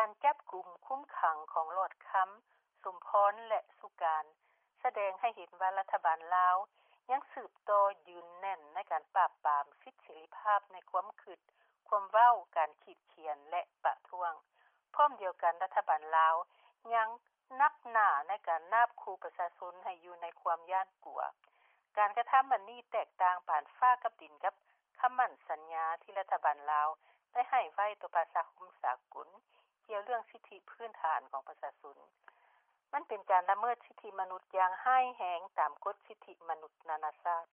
ການຈັບກຸມຄຸມຂັງ ຂອງຫຼອດຄຳ ສົມພອນ ແລະ ສຸການ ສະແດງໃຫ້ເຫັນວ່າ ລັດຖະບານລາວ ຍັງສືບຕໍ່ ຢືນແໜ້ນ ໃນການປາບປາມ ສິດເສລີພາບ ໃນຄວາມຄິດ ຄວາມເວົ້າ ການຂີດຂຽນ ແລະ ປະທ້ວງ. ພ້ອມດຽວກັນ ລັດຖະບານລາວ ຍັງໜັກໜາ ໃນການນາບຂູ່ ປະຊາຊົນ ໃຫ້ຢູ່ໃນຄວາມຢ້ານກົວ. ການກະທຳອັນນີ້ ແຕກຕ່າງ ປານຟ້າກັບດິນ ກັບຄຳໝັ້ນສັນຍາ ທີ່ລັດຖະບານລາວ ໄດ້ໃຫ້ໄວ້ຕໍ່ ປະຊາຄົມສາກົນ ກ່ຽວເລື່ອງສິດທິ ພື້ນຖານ ຂອງປະຊາຊົນ. ມັນເປັນການລະເມີດ ສິດທິມະນຸດ ຢ່າງຮ້າຍແຮງ ຕາມກົດສິດທິມະນຸດ ນານາຊາດ.